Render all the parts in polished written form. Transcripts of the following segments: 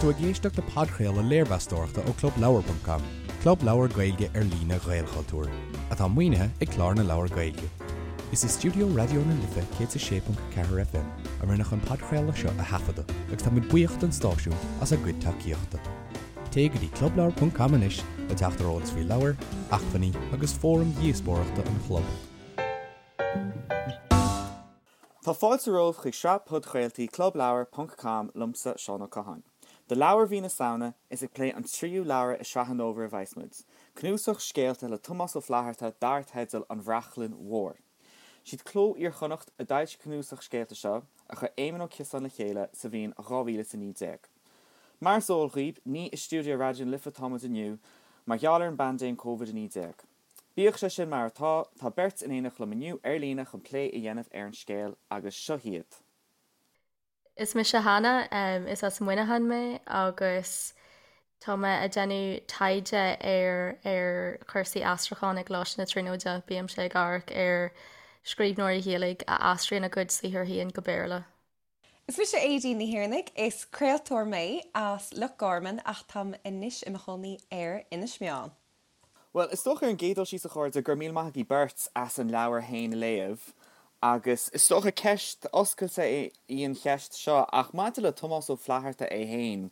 Tá tú ag éisteacht le podchraoladh léirmheastóireachta ó ClubLeabhar.com, club leabhar Gaeilge ar líne Ghaelchultúir, atá maoinithe ag Clár na Leabhar Gaeilge. Is i stiúideo Raidió na Life 106.4 FM a rinneadh an podchraoladh seo a thaifeadadh agus táimid buíoch don stáisiún as a gcuid tacaíochta. Téigh go dtí clubleabhar.com anois le teacht ar eolas faoi leabhair, acmhainní agus fóraim dhíospóireachta an chlub. Tá fáilte romhaibh chuig sraith podchraoltaí Clubleabhar ponc com liomsa, Seán Ó Catháin. Do leabhar mhí na Samhna, is ag plé an tríú leabhar i sraith an fhómhair a bheas muid, cnuasach scéalta le Tomás Ó Flaithearta dar teideal An Bhrachlainn Mhór. Siad Cló Iar-Chonnacht a d'fhoilsigh an cnuasach scéalta seo, a chuir Éamon Ó Ciosáin le chéile sa bhliain 2019. Mar is eol dhaoib, ní i stiúideo Raidió na Life atá muid inniu, mar gheall ar an bpaindéim Covid-19. Bíodh sé sin mar atá, tá beirt in éineacht liom inniu ar líne chun plé a dhéanamh ar an scéal, agus seo hiad. Is mise Hannah, is as Muineachán mé agus tá mé ag déanamh taighde ar ar chúrsaí aistriúcháin i gColáiste na Tríonóide. Bímse ag amharc ar scríbhneoirí Ghaeilge a aistríonn a gcuid saothar féin go Béarla. Is mise Aedín Ní Thiarnaigh, is craoltóir mé as Loch Garman ach táim anois i mo chónaí ar Inis Meáin. Bhuel, is dócha ar an gcéad dul síos a chairde, go raibh míle maith agaibh beirt as an leabhar féin a léamh agus is dócha ceist oscailte í an cheist seo ach maidir le Tomás Ó Flaithearta é féin,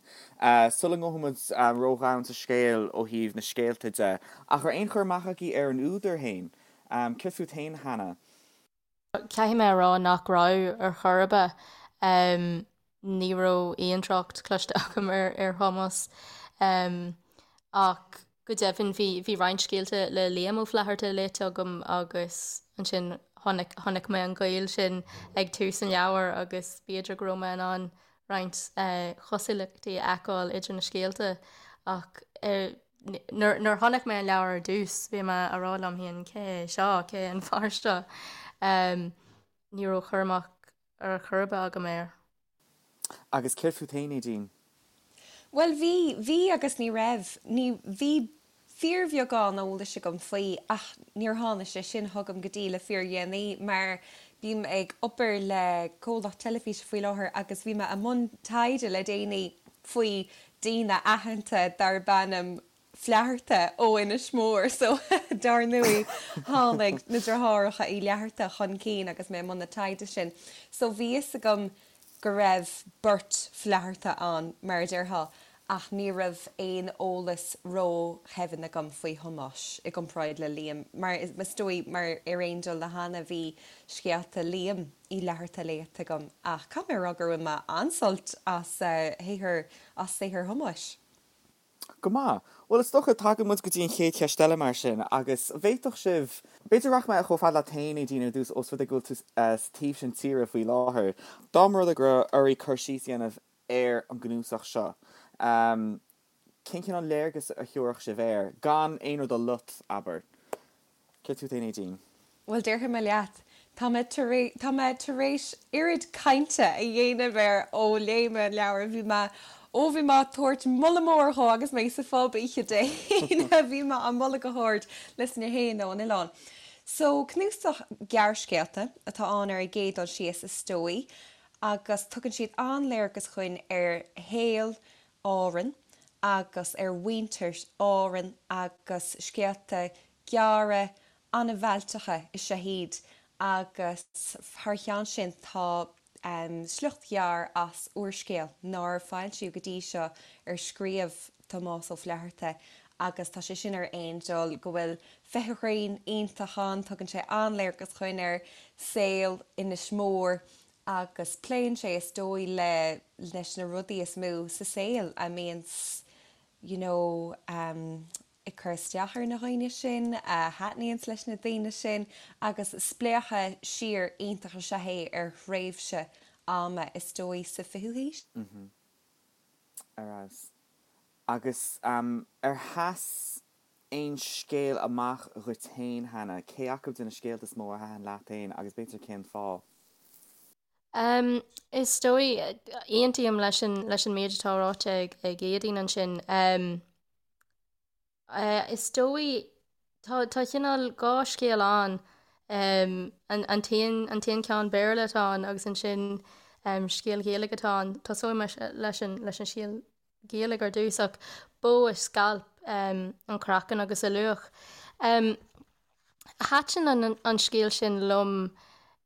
sula ngabhfaidh muid ródhomhain sa scéal ó thaobh na scéalta de, ach raibh aon chur amach agaibh ar an údar féin? Céard fút féin, Hannah? Caithfidh mé a rá nach raibh ar chor ar bith. Ní raibh aon trácht cloiste agam ar ar Thomás. Ach go deimhin bhí bhí roinnt scéalta le Liam Ó Flaithearta léite agam agus ansin chonaic chonaic mé an gaol sin ag tús an leabhair agus b'fhéidir go raibh mé in ann roinnt cosúlachtaí a fheiceáil idir na scéalta ach Nuair a chonaic mé an leabhar ar dtús, bhí mé a rá liom féin, cé hé seo, cé hé an fear seo? Ní raibh cur amach ar chor ar bith agam air. Agus céard fút féin, Aedín? Bhuel, bhí, bhí agus ní raibh. Ní, bhí fíorbheagán eolais agam faoi ach níor tháinig sé sin chugam go dtí le fíordhéanaí mar bím ag obair le comhlacht teilifíse faoi láthair agus bhí mé i mbun taighde le déanaí faoi daoine aitheanta darb ainm Flatharta ó Inis Mór so dar ndóigh tháinig na deartháireacha Uí Fhlatharta chun cinn agus mé i mbun na taighde sin. So bhí fhios agam go raibh beirt Flatharta ann mar a déarfá ach ní raibh aon eolas ródhoimhin agam faoi Thomás i gcomparáid le Liam mar is dóigh mar ar aon dul le Hannah bhí scéalta Liam Uí Fhlatharta léite agam ach caithfidh mé a rá gur bhain mé an-sult as shaothar as saothar Thomáis. Go maith. Bhuel, is dócha, tagann muid go dtí an chéad cheist eile mar sin, agus an bhféadfadh sibh, b'fhéidir rachaidh mé chomh fada leat féin, Aedín, ar dtús, ós rud é go bhfuil tú sa taobh sin tíre faoi láthair. Dá mba rud é go raibh oraibh cur síos a dhéanamh ar an gcnuasach seo, cén cineál léargas a thabharfadh sibh air, gan aon rud a lot, abair? Céard fút féin, Aedín? Bhuel, déarfaidh mé leat, tá mé tar éis, tá mé tar éis oiread cainte a dhéanamh air ó léigh mé an leabhar. Bhí mé, ó bhí mé ag tabhairt moladh mór dhó agus mé sa phub oíche Dé hAoine, bhí mé á moladh go hard leis na héinne ón oileán. So, cnuasach gearrscéalta atá ann ar an gcéad dul síos, is dóigh, agus tugann siad an-léargas dhuinn ar shaol Árann agus ar mhuintir Árann agus scéalta gearra an-mhealltacha is ea iad agus thar cheann sin tá sliocht ghearr as úrscéal nár foilsíodh go dtí seo ar scríobh Tomás Ó Flaithearta agus tá sé sin ar aon dul go bhfuil feithimh ghrinn iontach ann, tugann sé an-léargas dhuinn ar saol Inis Mór agus pléann sé is dóigh le leis na rudaí is mó sa saol a mbíonns you know ag cur isteach ar na dhaoine sin, a thaitníonns leis na daoine sin agus spléachadh siar iontach is ea é ar thréimhse ama is dóigh sa fichiú haois. Mhm. Ar fheabhas. Agus ar sheas aon scéal amach dhuit féin, Hannah? Cé acu de na scéalta is mó a thaitin leat féin agus b'fhéidir cén fáth? Is dóigh, aontaím leis an leis an méid atá ráite ag ag Aedín ansin. Is dóigh, tá tá cineál dhá scéal ann, an an t-aon an t-aon ceann Béarla atá ann agus ansin scéal Gaeilge atá ann. Tosóidh mé leis an leis an scéal. Ghaeilge ar dtús ach Bó a Scailp an Craiceann agus a Luach. Thaitin an scéal sin liom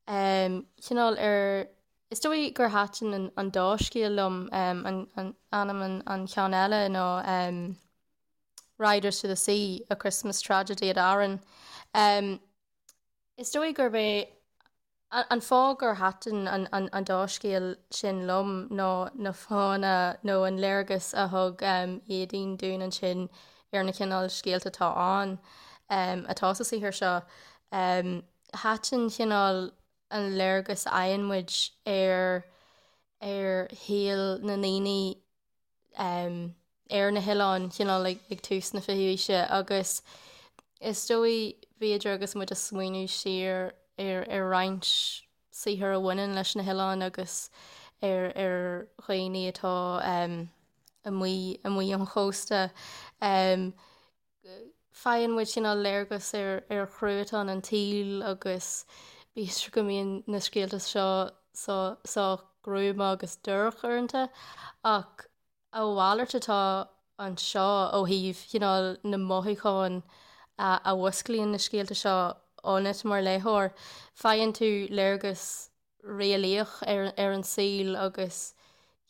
cineál ar, is dóigh gur thaitin an dá scéal liom, an ainm an cheann eile ná Riders to the Sea, A Christmas Tragedy at Aran. Is dóigh gurb é an fáth gur thaitin an dá scéal sin liom ná na fáthanna nó an léargas a thug Éadaoin dúinn ansin ar na cineál scéalta atá ann, atá sa saothar seo. Thaitin cineál an léargas a fhaigheann muid ar ar shaol na ndaoine ar na hoileáin, cineál ag tús na fichiú haoise agus is dóigh, b'fhéidir agus muid ag smaoineamh siar ar ar roinnt saothar a bhaineann leis na hoileáin agus ar ar dhaoine atá amuigh amuigh ón chósta, faigheann muid cineál léargas ar ar chruatan an tsaoil agus b'fhéidir go mbíonn na scéalta seo sách gruama agus dorcha uaireanta ach a mhalairt atá anseo ó thaobh chineál na mothúcháin a mhúsclaíonn na scéalta seo ionat mar léitheoir. Faigheann tú léargas réalaíoch ar ar an saol agus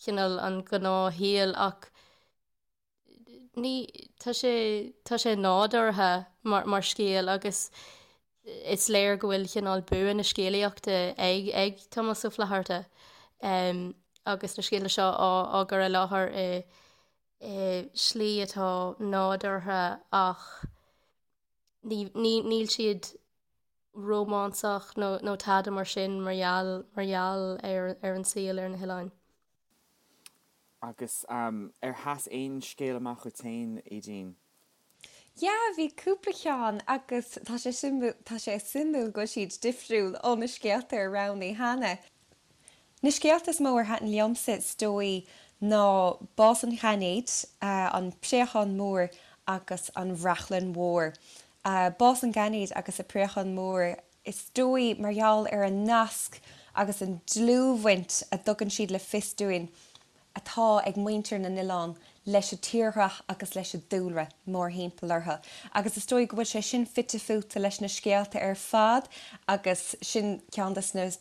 cineál an gnáthshaol ach ní, tá sé, tá sé nádúrtha mar, mar scéal agus is léir go bhfuil cineál bua na scéalaíochta ag, ag Tomás Ó Flaithearta agus na scéalta seo á, á gcur i láthair i, i slí atá nádúrtha ach ní, ní, níl siad rómánsach nó, nó tada mar sin mar gheall, mar gheall ar, ar an saol ar na hoileáin. Agus ar sheas aon scéal amach dhuit féin, Aoidín? Yeah, bhí cúpla ceann agus tá sé suimiúil, tá sé suimiúil go bhfuil siad difriúil ó na scéalta ar roghnaigh Hannah. Na scéalta is mó ar thaitin liomsa is dóigh ná Bás an Ghainéid, An Préachán Mór agus An Bhrachlainn Mhór. Bás an Ghainéid agus An Préachán Mór Is dóigh, mar gheall ar an nasc agus an dlúthbhaint a dtugann siad le fios dúinn atá ag muintir na n-oileán leis an tírdhreach agus leis an dúlra mórthimpeall orthu. Agus is dóigh go bhfuil sé sin fite fuaite leis na scéalta ar fad agus sin ceann de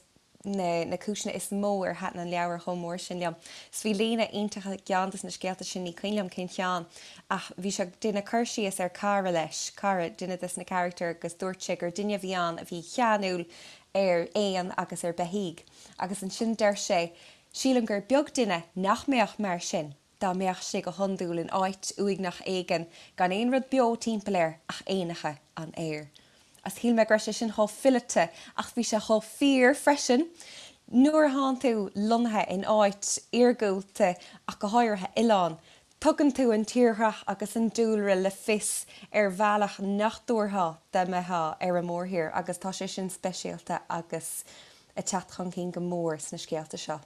na na cúiseanna is mó ar thaitin an leabhar chomh mór sin liom. 'S bhí líne iontach i gceann des na scéalta sin, ní cuimhin liom cén cheann, ach bhí sé ag déanamh cur síos ar cara leis, cara, duine des na carachtair agus dúirt sé gur duine a bhí ann a bhí ceanúil ar éin agus ar beithígh. Agus ansin deir sé, sílim gur beag duine nach mbeadh mar sin. dá mbeadh sé go hiondúil in áit uaigneach éigin gan aon rud beo timpeall air ach éanacha an aeir. Agus shíl mé go raibh sé sin chomh fileata ach bhí sé chomh fíor freisin. Nuair a thánn tú lonnaithe in áit iargúlta ach go háirithe oileán, tugann tú an tírdhreach agus an dúlra le fios ar bhealach nach dtabharfá dá mbeifeá ar an mórthír agus tá sé sin speisialta agus ag teacht chun cinn go mór sna scéalta seo.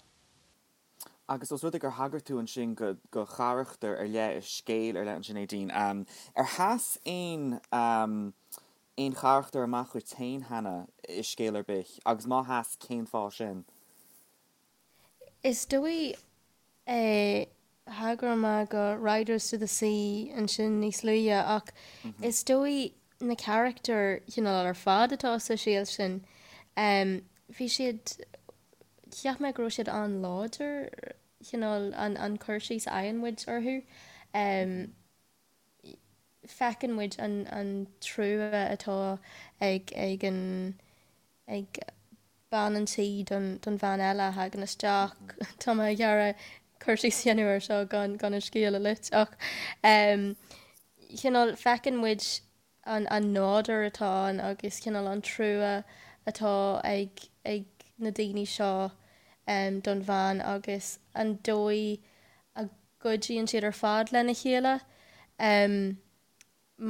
Agus os rud é gur thagair tú ansin go go charachtar ar leith i scéal ar leith ansin, Aedín, ar sheas aon aon charachtar amach dhuit féin cheana i scéal ar bith agus má sheas, cén fáth sin? Is dóigh thagair mé go Riders to the Sea ansin níos luaithe ach is dóigh na carachtair chineál ar fad atá sa scéal sin, bhí siad Cheap mé go raibh siad an-láidir, cineál an cur síos a fhaigheann muid orthu. Feiceann muid an trua atá ag ag an ag bean an tí don don bhean eile a thagann isteach. Tá mé ag iarraidh cur síos a dhéanamh air seo gan gan an scéal a loit ach cineál feiceann muid an nádúr atá ann agus cineál an trua atá ag ag na daoine seo don bhean agus an dóigh a gcuidíonn siad ar fad lena chéile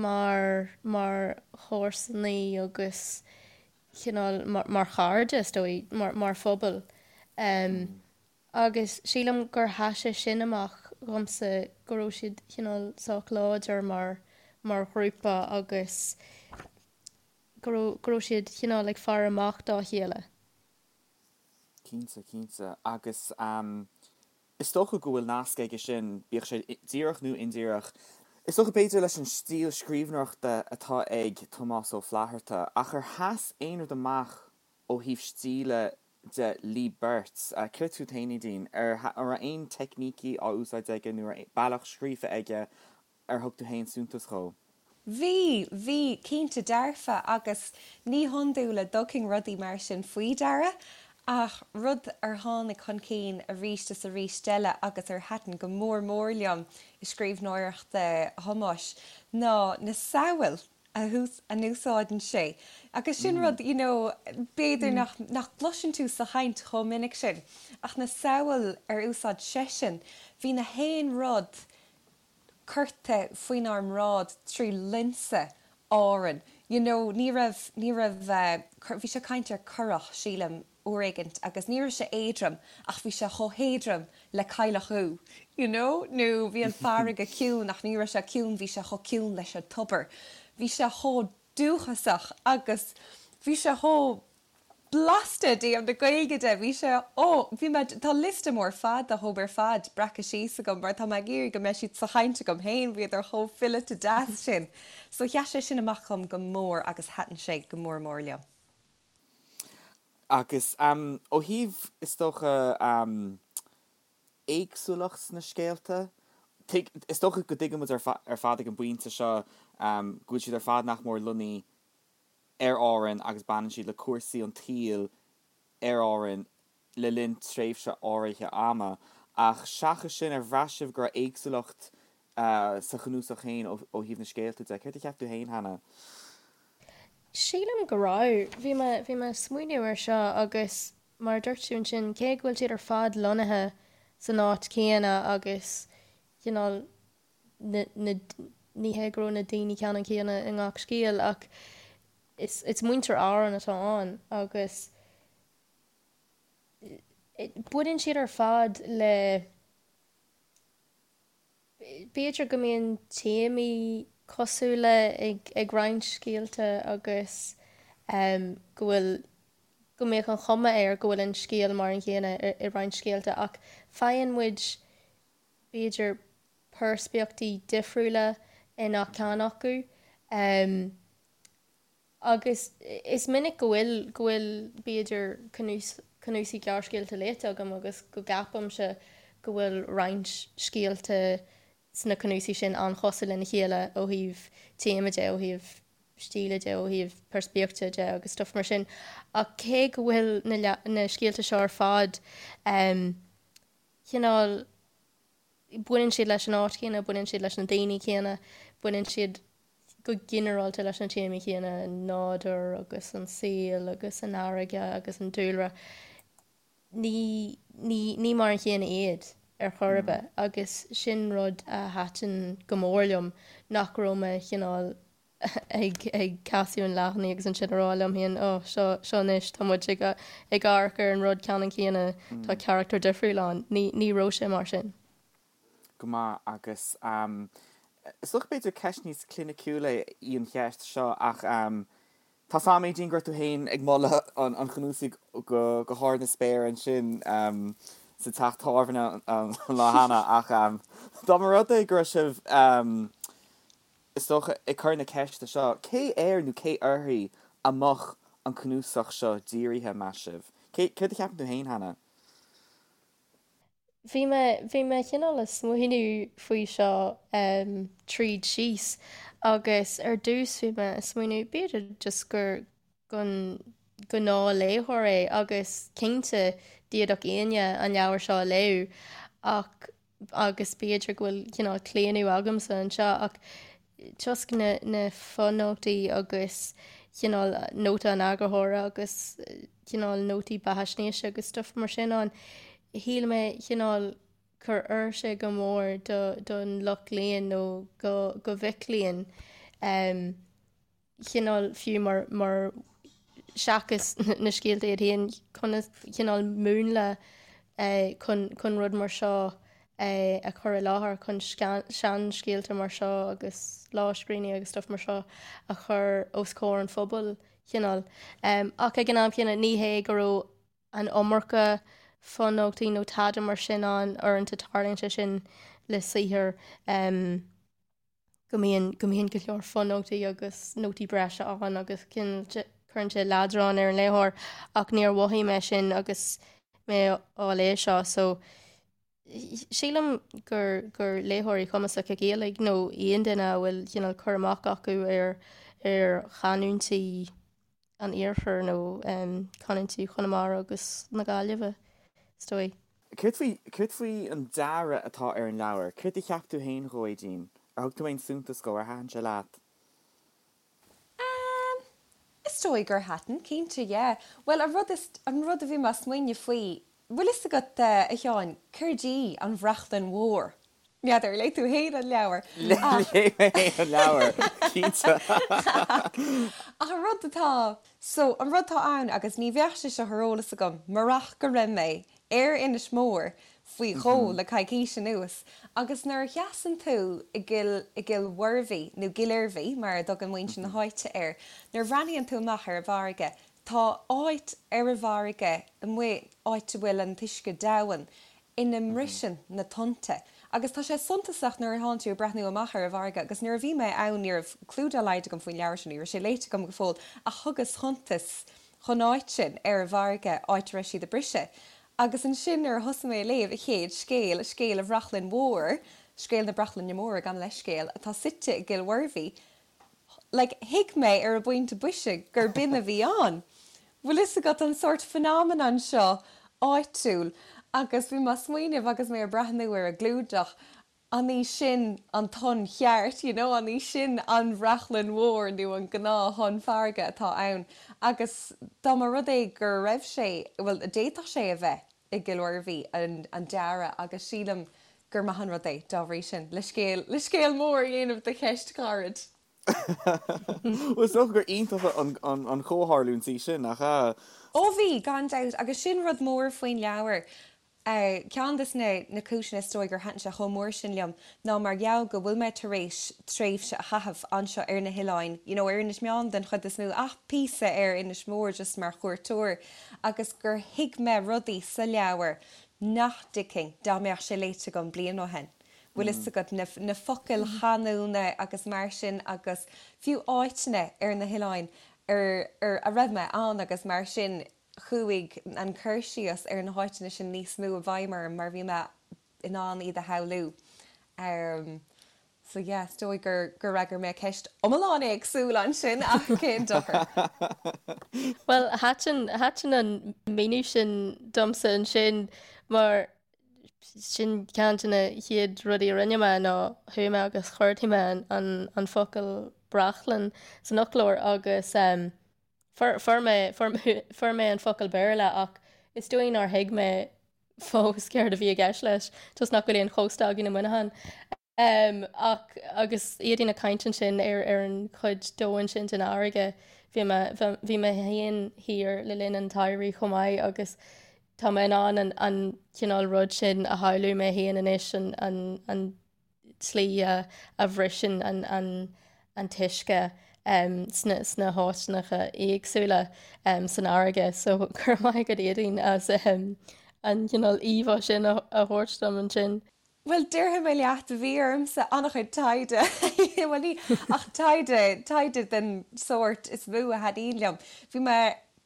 mar mar chomharsanaí agus cineál mar chairde is dóigh mar mar phobal. Agus sílim gur sheas sé sin amach dhomsa, go raibh siad cineál sách láidir mar, mar ghrúpa agus go raibh, go raibh siad cineál ag faire amach dá chéile. Cinnte, cinnte. Agus. Is dócha go bhfuil nasc aige sin, bíodh sé díreach nó indíreach, is dócha b'fhéidir leis an stíl scríbhneoireachta atá ag Tomás Ó Flaithearta, ach ar sheas aon rud amach ó thaobh stíle de libh beirt? Céard fút féin, Aedín? Ar raibh aon teicnící á úsáid aige nó ar bealach scríofa aige ar thug tú féin suntas dhó? Bhí, bhí, cinnte dearfa, agus ní hiondúil a dtugfainn rudaí mar sin faoi deara, ach rud ar tháinig chun cinn arís is arís eile agus ar thaitin go mór mór liom i scríbhneoireacht Thomáis ná na samhail a n-úsáideann sé. Agus sin rud, you know, b'fhéidir nach, nach gcloiseann tú sa chaint chomh minic sin, ach na samhail ar úsáid seisean, bhí na haon rud curtha faoinár mbráid trí lionsa Árann. You know, ní raibh, ní raibh, bhí sé ag caint ar currach, sílim, uair éigint agus ní raibh sé éadrom ach bhí sé chomh héadrom le cailleach úd, you know, nó bhí an farraige ciúin ach ní raibh sé ciúin, bhí sé chomh ciúin leis an tobar. Bhí sé chomh dúchasach agus bhí sé chomh blasta i dtaobh na Gaeilge de. Bhí sé, ó, bhí mé, tá liosta mór fada dhóibh ar fad breactha síos agam mar tá mé ag iarraidh go mbeidh siad sa chaint agam féin, bhíodar chomh fileata deas sin. So sheas sé sin amach dhom go mór agus thaitin sé go mór mór liom. Agus ó thaobh, is dócha, éagsúlacht sna scéalta, is dócha go dtuigeann muid ar fad ag an bpointe seo go bhfuil siad ar fad nach mór lonnaithe ar Árainn agus baineann siad le cúrsaí an tsaoil ar Árainn le linn tréimhse áirithe ama. Ach seachas sin, ar bhraith sibh go raibh éagsúlacht sa chnuasach féin ó thaobh na scéalta de? Céard a cheap tú féin, Hannah? Sílim go raibh. Bhí mé, bhí mé ag smaoineamh air seo agus mar a dúirt tú ansin, cé go bhfuil siad ar fad lonnaithe san áit chéanna agus cineál na, na, ní hé go raibh na daoine ceannann céanna i ngach scéal ach is, is muintir Árann atá ann agus baineann siad ar fad le, b'fhéidir go mbíonn téamaí cosúla ag, ag roinnt scéalta agus go bhfuil, go mbeadh an chuma air go bhfuil an scéal mar an gcéanna i roinnt scéalta ach faigheann muid b'fhéidir, peirspictíochtaí difriúla i ngach ceann acu. Agus is minic go bhfuil, go bhfuil, b'fhéidir, cnuasaigh gearrscéalta léite agam agus go gceapaimse go bhfuil roinnt scéalta sna cnuasaigh sin an-chosúil lena chéile ó thaobh téama de, ó thaobh stíle de, ó thaobh peirspictíochta de agus stuff mar sin. Ach cé go bhfuil na, na scéalta seo ar fad, cineál, baineann siad leis an áit chéanna, baineann siad leis na daoine céanna, baineann siad go ginearálta leis na téamaí céanna, an nádúr agus an saol agus an fharraige agus an dúlra. Ní, ní, ní mar an chéanna iad ar chor ar bith agus sin rud a thaitin go mór liom, nach raibh mé cineál ag ag casadh an leathanaigh agus ansin a rá liom féin, oh, seo, seo anois, tá muid ag ag amharc ar an rud ceannann céanna, tá carachtar difriúil ann. Ní, ní raibh sé mar sin. Go maith, agus is dócha b'fhéidir ceist níos cliniciúla í an cheist seo ach tá 's a'm Aedín go raibh tú féin ag moladh an an chnuasaigh go go hard na spéire ansin sa teach tábhairne an lá cheana ach dá mba rud é go raibh sibh is dócha, ag cur na ceiste seo, cé air nó cé uirthi a mbeadh an cnuasach seo dírithe, meas sibh? Cé, céard a cheapann tú féin, Hannah? Bhí mé, bhí mé cineál ag smaoineamh faoi seo tríd síos agus ar dtús bhí mé ag smaoineamh b'fhéidir just gur don ghnáthléitheoir é agus cinnte d'fhéadfadh éinne an leabhar seo a léamh ach agus b'fhéidir go bhfuil cineál claonadh agamsa anseo ach toisc na na fonótaí agus cineál nóta an eagarthóra agus cineál nótaí beathaisnéise agus stuff mar sin ann, shíl mé cineál gur oir sé go mór do don lucht léinn nó go go mhic léinn. chineál fiú mar, mar seachas na scéalta iad féin, conas cineál múnla chun, chun rud mar seo a chur i láthair, chun seanscéalta mar seo agus lámhscríbhinní agus stuff mar seo a chur os comhair an phobail, chineál. Ach ag an am chéanna ní hé go raibh an iomarca. fonótaí nó tada mar sin ann, uaireanta tarlaíonn sé sin le saothar go mbíonn go mbíonn go leor fonótaí agus nótaí breise ann agus cuireann sé leadrán ar an léitheoir ach níor mhothaigh mé sin agus mé á léamh seo so sílim gur gur léitheoirí cumasacha Gaeilge nó aon duine a bhfuil cineál cur amach acu ar ar chanúintí an iarthair nó canúintí Chonamara agus na Gaillimhe, is dóigh. Céard faoi, céard faoi an dearadh atá ar an leabhar? Céard a cheap tú féin dhó, Aedín? Ar thug tú aon suntas dhó? Ar thaitin sé leat? Ehm, is dóigh gur thaitin, cinnte, yeah. Bhuel, an rud is, an rud a bhí mé ag smaoineamh faoi, bhfuil fhios agat, a Sheáin, céard í an bhrachlainn mhór? N'fheadar, léigh tú fhéin an leabhar. Léigh mé fhéin an leabhar, cinnte. Ach an rud atá, so, an rud atá ann, agus ní bheadh sé seo ar eolas agam murach go raibh mé ar Inis Mór faoi dhó le coicís anuas, agus nuair a sheasann tú i gCill, i gCill Mhuirbhí, nó Cill Oirbhí mar a dtugann muintir na háite air, nuair a bhreathnaíonn tú amach ar an bhfarraige, tá áit ar an bhfarraige amuigh, áit a bhfuil an t-uisce domhain, ina mbriseann na tonnta. Agus tá sé suntasach nuair atánn tú ag breathnú amach ar an bhfarraige, agus nuair a bhí mé ann ní raibh clú dá laghad agam faoin leabhar seo, ní raibh sé léite agam go fóill, ach thugas suntas dhon áit sin ar an bhfarraige, áit a raibh siad ag briseadh. Agus ansin nuair a thosaigh mé ag léamh an chéad scéal, scéal an Bhrachlainn Mhór, scéal na Brachlainne Móire, gabh mo leithscéal, atá suite i gCill Mhuirbhí, Like, thuig mé ar an bpointe boise gur b'in a bhí ann. Bhfuil fhios agat an sórt phenomenon seo áitiúil agus bhí mé ag smaoineamh agus mé ag breathnú ar an gclúdach, an í sin an tonn cheart, you know, an í sin an bhrachlainn mhór nó an gnáth-thonn farraige atá ann agus dá mba rud é go raibh sé, bhuel, d'fhéadfadh sé a bheith i gCill Mhuirbhí an dearadh agus sílim gur maith an rud é, dá bhrí sin, le scéal, le scéal mór a dhéanamh de cheist ghairid. Bhuel, is dócha gur iontach an chomhtharlúint í sin, nach ea? Ó bhí, gan dabht, agus sin rud mór faoin leabhar. Ceann des na na cúiseanna is dóigh gur thaitin sé chomh mór sin liom ná mar gheall go bhfuil mé tar éis tréimhse a chaitheamh anseo ar na hoileáin, you know, ar Inis Meáin den chuid is mó, ach píosa ar Inis Mór just mar chuairteoir, agus gur thuig mé rudaí sa leabhar nach dtuigfinn dá mbeadh sé léite agam bliain ó shin. Bhfuil fhios agat, na, na focail chanúna agus mar sin agus fiú áiteanna ar na hoileáin ar, ar, a raibh mé ann agus mar sin, chuaigh an cur síos ar na háiteanna sin níos mó i bhfeidhm orm mar bhí mé in ann iad a shamhlú. So yeah, is dóigh gur gur fhreagair mé ceist iomlán éagsúil ansin ach cén dochar. Bhuel, thaitin, thaitin an míniú sin domsa ansin mar sin ceann de na chéad rudaí a rinne mé ná chuaigh mé agus chuardaigh mé an, an, an focal brachlainn san fhoclóir agus um, fuair, fuair mé, fuair, fuair mé an focal Béarla ach is dóigh nár thuig mé fós céard a bhí i gceist leis, toisc nach bhfuil aon chósta againn i Muineachán. Ach agus Aedín ag caint ansin ar ar an chuid domhain sin den fharraige, bhí mé bhí mé féin thiar le linn an tsamhraidh chomh maith agus tá mé in ann an an cineál rud sin a shamhlú mé féin anois, an an an tslí a a bhriseann an an an t-uisce sna sna háiteanna éagsúla san fharraige. So go raibh maith agat Aedín as an cineál íomhá sin a thabhairt dom ansin. Bhuel, déarfaidh mé leat, bhí ormsa an-chuid taighde, bhuel ní, ach taighde, taighde den sórt is mó a thaitníonn liom. Bhí mé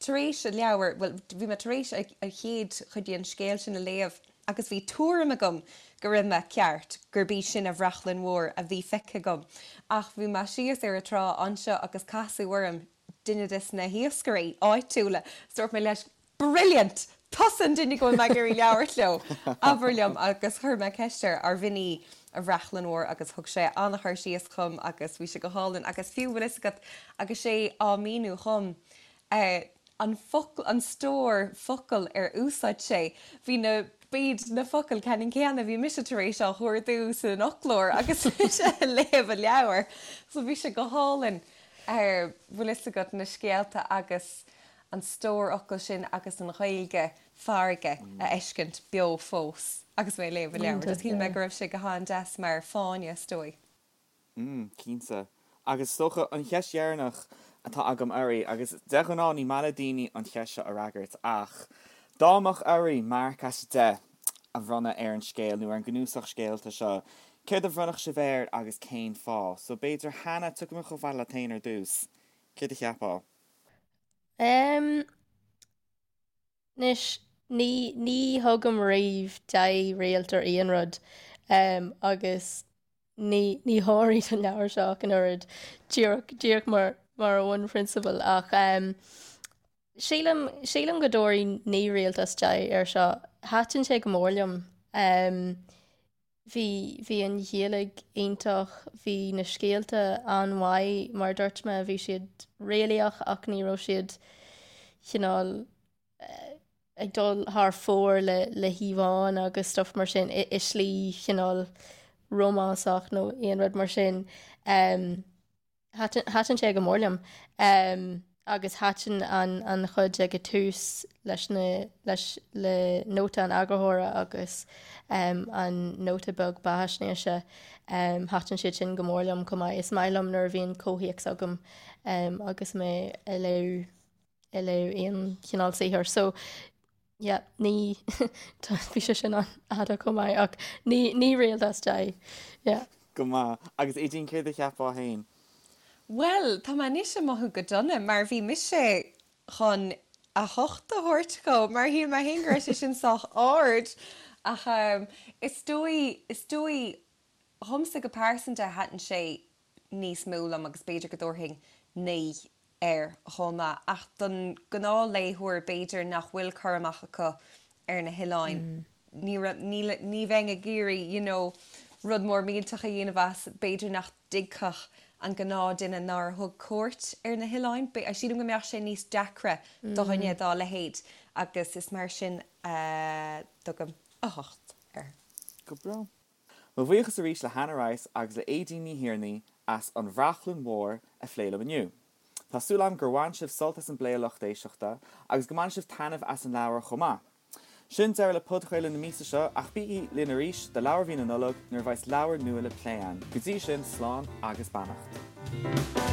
tar éis an leabhar, bhuel, bhí mé tar éis an chéad chuid den scéal sin a léamh agus bhí tuairim agam go raibh mé ceart, gurb í sin an bhrachlainn mhór a bhí feicthe agam. Ach bhí mé síos ar an trá anseo agus casadh orm duine des na hiascairí áitiúla, is dúirt mé leis, Brilliant! Tusa an duine go bhfuil mé ag iarraidh labhairt leo! Abair liom agus chuir mé ceist air arbh in í an bhrachlainn mhór agus thug sé an-chur síos dhom agus bhí sé go hálainn agus fiú bhfuil fhios agat agus é á míniú dhom eh an focal, an stór focal ar úsáid sé, bhí na, b'iad na focail ceannann céanna a bhí mise tar éis á chuardú san fhoclóir agus mise ag léamh an leabhair so bhí sé go hálainn eh bhfuil fhios agat na scéalta agus an stór fhocal sin agus an Ghaeilge farraige a fheiscint beo fós agus mé ag léamh an leabhair. Just shíl mé go raibh sé go han-deas mar fáinne, is dóigh. Mm, cinnte. Agus is dócha, an cheist dheireanach atá agam oraibh, agus de ghnáth ní maith le daoine an cheist seo a fhreagairt, ach. Dá mbeadh oraibh marc as 10 a bhronnadh ar an scéal nó ar an gcnuasach scéalta seo, céard a bhronnfadh sibh air agus cén fáth? So b'fhéidir Hannah, tiocfaidh mé chomh fada leat féin ar dtús. Céard a cheapfá? Em, anois, ní, ní thugaim riamh 10 réalt ar aon rud, em, agus ní, ní thabharfainn don leabhar seo ach an oiread, díreach, díreach mar, mar bhunphrionsabal ach, em, Sílim, sílim go dtabharfainn 9 réalt as 10 air seo. Thaitin sé go mór liom. Bhí, bhí an Ghaeilge iontach, bhí na scéalta an-mhaith, mar a dúirt mé, bhí siad réalaíoch ach ní raibh siad cineál ag dul thar fóir le, le híomhánna agus stuff mar sin i, i slí chineál rómánsach nó aon rud mar sin. Thaitin sé go mór liom agus thaitin an chuid ag an tús leis na, leis, le nóta an eagarthóra agus an nóta beag beathaisnéise, thaitin siad sin go mór liom chomh maith. Is maith liom nuair a bhíonn comhthéacs agam agus mé ag léamh, ag léamh aon chineál saothair. So, Yeah, ní, bhí sé sin an-fhada chomh maith ach ní, 9 réalt as 10. Yeah. Go maith. Agus Aedín, céard a cheapfá féin? Bhuel, tá mé anois ag mothú go dona mar bhí mise chun a hocht a thabhairt dhó mar shíl mé féin go raibh sé sin sách ard ach is dóigh, is dóigh dhomsa go pearsanta thaitin sé níos mó liom agus b'fhéidir go dtabharfainn 9 air chomh maith. Ach don ghnáthléitheoir b'fhéidir nach bhfuil cur amach acu ar na hoileáin, ní raibh, níl, ní bheinn ag iarraidh you know rud mór millteach a dhéanamh as, b'fhéidir nach dtuigfeadh an gnáthdhuine nár thug cuairt ar na hoileáin, sílim go mbeadh sé níos deacra do dhuine dá leithéid agus is mar sin a dtugaim 8 air. Go breá. Mo bhuíochas arís le Hannah Rice agus le Aedín Ní Thiarnaigh as An Bhrachlainn Mhór a phlé liom inniu. Tá súil agam gur bhain sibh sult as an bplé a lucht éisteachta agus go mbainfidh sibh taitneamh as an leabhar chomh maith. Sin deireadh le podchraoladh na míosa seo ach bígí linn arís do Leabhar Mhí na Nollag nuair a bheas leabhar nua le plé againn. Go dtí sin, slán agus beannacht.